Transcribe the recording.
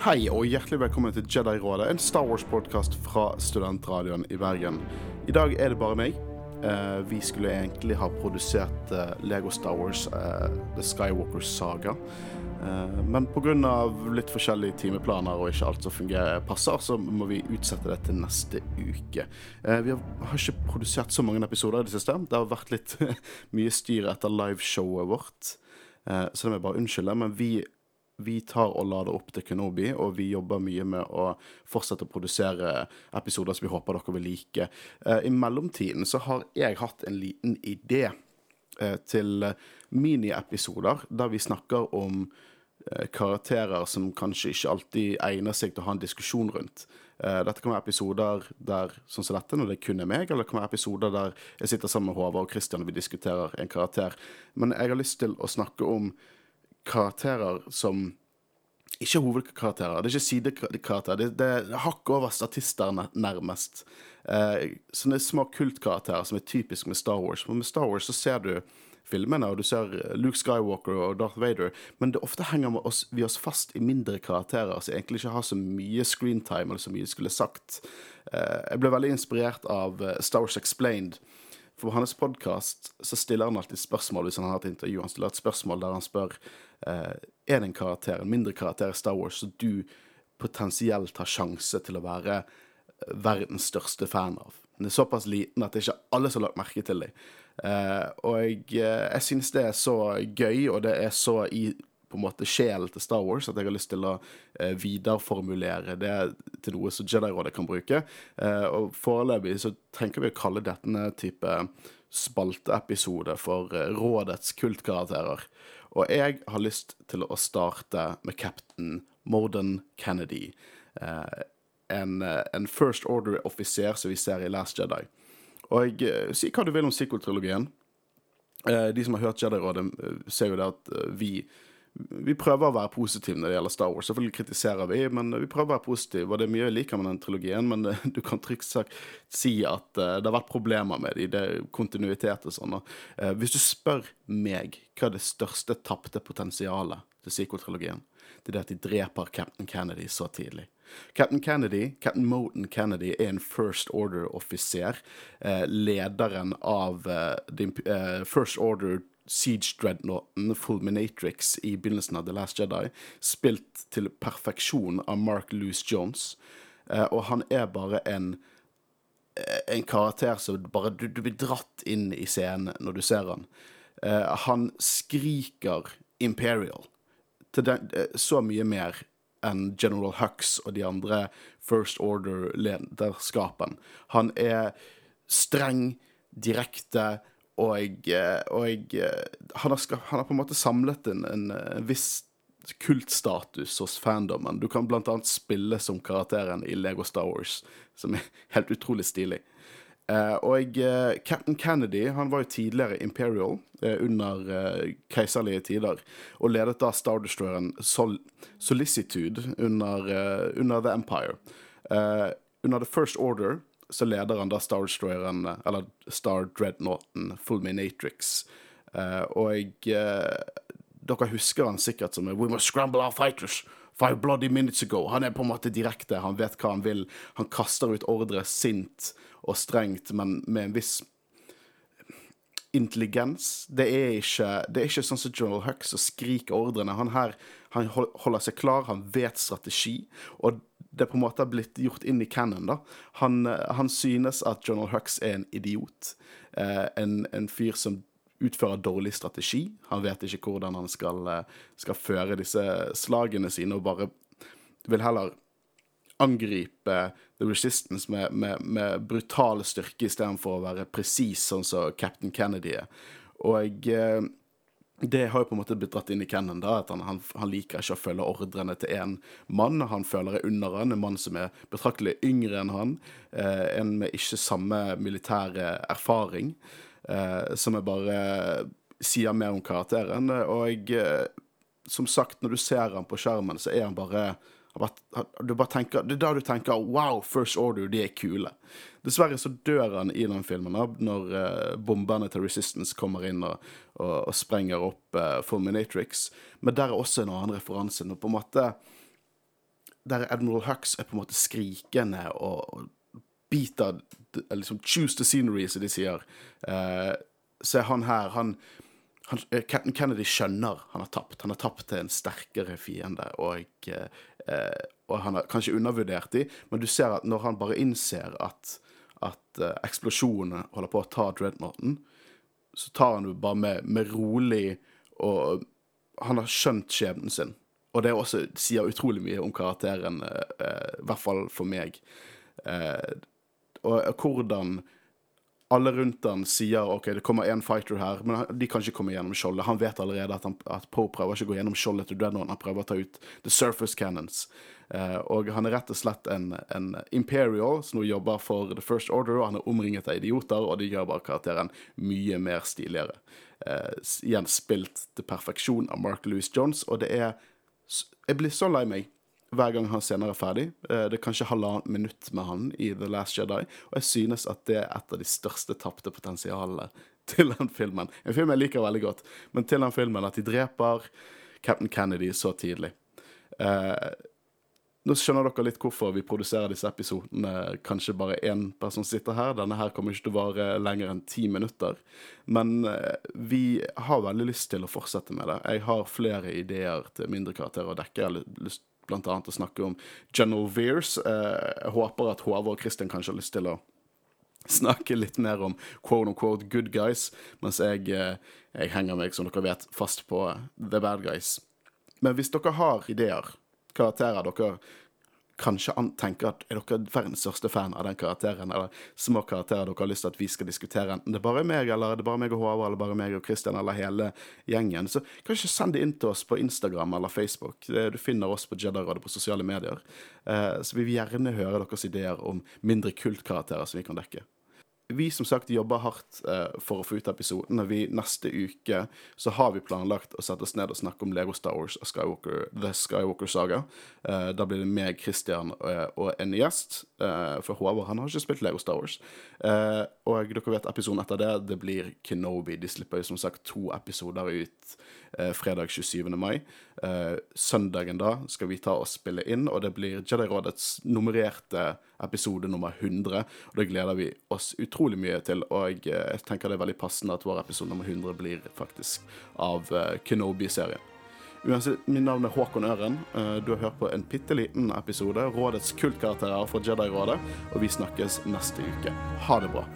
Hei og hjertelig velkommen til Jedi-rådet, en Star Wars-podcast fra Studentradioen i Bergen. I dag er det bare meg. Vi skulle egentlig ha produsert Lego Star Wars, The Skywalker Saga. Men på grunn av litt forskjellige timeplaner og ikke alt som passer, så må vi utsette det til neste uke. Vi har ikke produsert så mange episoder i det siste. Det har vært litt mye styr etter liveshowet vårt. Så det må jeg bare unnskylde, men vi tar og lader opp til Kenobi, og vi jobber mye med å fortsette å produsere episoder som vi håper dere vil like. I mellomtiden så har jeg hatt en liten idé til mini-episoder, der vi snakker om karakterer som kanskje ikke alltid egner seg til å ha en diskusjon rundt. Dette kan være episoder der, sånn som dette, når det kun er meg, eller det kan være episoder der jeg sitter sammen med Håvard og Christian og vi diskuterer en karakter. Men jeg har lyst til å snakke om karakterer som ikke er hovedkarakterer, det er ikke sidekarakterer, det er hakk over statister nærmest. Sånne små kultkarakterer som er typisk med Star Wars. Men med Star Wars så ser du filmene, og du ser Luke Skywalker og Darth Vader, men det ofte henger vi oss fast i mindre karakterer, som egentlig ikke har så mye screentime, eller så mye skulle sagt. Jeg ble veldig inspirert av Star Wars Explained. For på hans podcast så stiller han alltid spørsmål hvis han har et intervju. Han stiller et spørsmål der han spør er det en karakter, en mindre karakter i Star Wars som du potensielt har sjanse til å være verdens største fan av. Den er såpass liten at det ikke er alle som har lagt merke til det. Og jeg synes det er så gøy, og det er så i på en måte sjel til Star Wars, at jeg har lyst til å videreformulere det til noe som Jedi-rådet kan bruke. Og foreløpig så tenker vi å kalle dette en type spalteepisode for rådets kultkarakterer. Og jeg har lyst til å starte med Captain Morden Kennedy, en First Order-offiser som vi ser i Last Jedi. Og si hva du vil om sequel-trilogien. De som har hørt Jedi-rådet ser jo det at vi prøver å være positive når det gjelder Star Wars. Selvfølgelig kritiserer vi, men vi prøver å være positive, og det er mye jeg liker med den trilogien, men du kan trygt sagt si at det har vært problemer med det er kontinuitet og sånn. Hvis du spør meg hva er det største tappte potensialet til sequel-trilogien, det er at de dreper Captain Kennedy så tidlig. Captain Morden Kennedy er en First Order-offiser, lederen av First Order Siege Dreadnoughten, Fulminatrix i begynnelsen av The Last Jedi, spilt til perfeksjon av Mark Lewis Jones, og han er bare en karakter som bare du blir dratt inn i scenen når du ser han. Han skriker Imperial til så mye mer enn General Hux og de andre First Order-lederskapen. Han er streng, direkte, og han har på en måte samlet en viss kultstatus hos fandomen. Du kan blant annet spille som karakteren i Lego Star Wars, som er helt utrolig stilig. Captain Kennedy, han var jo tidligere Imperial under keiserlige tider, og ledet da Star Destroyeren Solicitude under The Empire. Under The First Order så leder han da Star Destroyeren, eller Star Dreadnoughten, Fulminatrix. Dere husker han sikkert som We must scramble our fighters 5 bloody minutes ago. Han er på en måte direkte, han vet hva han vil. Han kaster ut ordre sint og strengt, men med en viss intelligens. Det er ikke sånn som General Hux som skriker ordrene. Han holder seg klar, han vet strategi, og det på en måte har blitt gjort inn i canon da. Han synes at General Hux er en idiot, en fyr som utfører dårlig strategi. Han vet ikke hvordan han skal føre disse slagene sine, og bare vil heller angripe The Resistance med brutal styrke i stedet for å være precis, sånn som Captain Kennedy er. Og det har jo på en måte blitt dratt inn i canon da, at han liker ikke å følge ordrene til en mann. Han føler det under han, en mann som er betraktelig yngre enn han, en med ikke samme militære erfaring, som er bare sier mer om karakteren. Og som sagt, når du ser han på skjermen, så er han bare du bare tenker, det er da du tenker wow, First Order, de er kule. Dessverre så dør han i den filmen når bomberne til Resistance kommer inn og sprenger opp Fulminatrix, men der er også en annen referanse, og på en måte der Admiral Hux på en måte skrikende og biter, liksom choose the scenery, som de sier. Så han her, Captain Kennedy skjønner han har tapt til en sterkere fiende, og han har kanskje undervurdert de, men du ser at når han bare innser at eksplosjonene holder på å ta Dreadnoughten, så tar han jo bare med rolig, og han har skjønt skjebnen sin. Og det også sier utrolig mye om karakteren, i hvert fall for meg. Og hvordan alle rundt han sier, ok, det kommer en fighter her, men de kan ikke komme gjennom skjoldet. Han vet allerede at Poe prøver ikke å gå gjennom skjoldet til Dreadnought, han prøver å ta ut the surface cannons. Og han rett og slett en Imperial som nå jobber for The First Order, og han omringet av idioter, og de gjør bare karakteren mye mer stiligere. Igjen spilt til perfeksjon av Mark Lewis Jones, og jeg blir så lei meg hver gang han senere ferdig. Det kanskje 1,5 minutt med han i The Last Jedi, og jeg synes at det et av de største tappte potensialene til den filmen. En film jeg liker veldig godt, men til den filmen at de dreper Captain Kennedy så tidlig. Nå skjønner dere litt hvorfor vi produserer disse episodene. Kanskje bare en person sitter her. Denne her kommer ikke til å vare lenger enn 10 minutter. Men vi har veldig lyst til å fortsette med det. Jeg har flere ideer til mindre karakterer å dekke. Jeg har lyst blant annet å snakke om General Veers. Jeg håper at Håvard og Christian kanskje har lyst til å snakke litt mer om quote-unquote good guys, mens jeg henger meg, som dere vet, fast på the bad guys. Men hvis dere har ideer, karakterer dere kanskje tenker at dere verdens største fan av den karakteren, eller små karakterer dere har lyst til at vi skal diskutere, enten det er bare meg, eller det er bare meg og Håvard, eller bare meg og Christian, eller hele gjengen, så kanskje send det inn til oss på Instagram eller Facebook. Du finner oss på Jedi-rådet på sosiale medier. Så vi vil gjerne høre deres ideer om mindre kultkarakterer som vi kan dekke. Vi som sagt jobber hardt for å få ut episoden. Neste uke så har vi planlagt å sette oss ned og snakke om Lego Star Wars og The Skywalker Saga. Da blir det meg, Christian og en gjest, for Håvard han har ikke spilt Lego Star Wars. Og dere vet episoden etter det blir Kenobi. De slipper jo som sagt 2 episoder ut fredag 27. mai. Søndagen da skal vi ta og spille inn, og det blir Jedi-rådets nummererte episode nummer 100, og det gleder vi oss utrolig mye til, og jeg tenker det er veldig passende at vår episode nummer 100 blir faktisk av Kenobi-serien. Uansett, min navn er Håkon Øren. Du har hørt på en pitteliten episode, Rådets kultkarakterer fra Jedi-rådet, og vi snakkes neste uke. Ha det bra!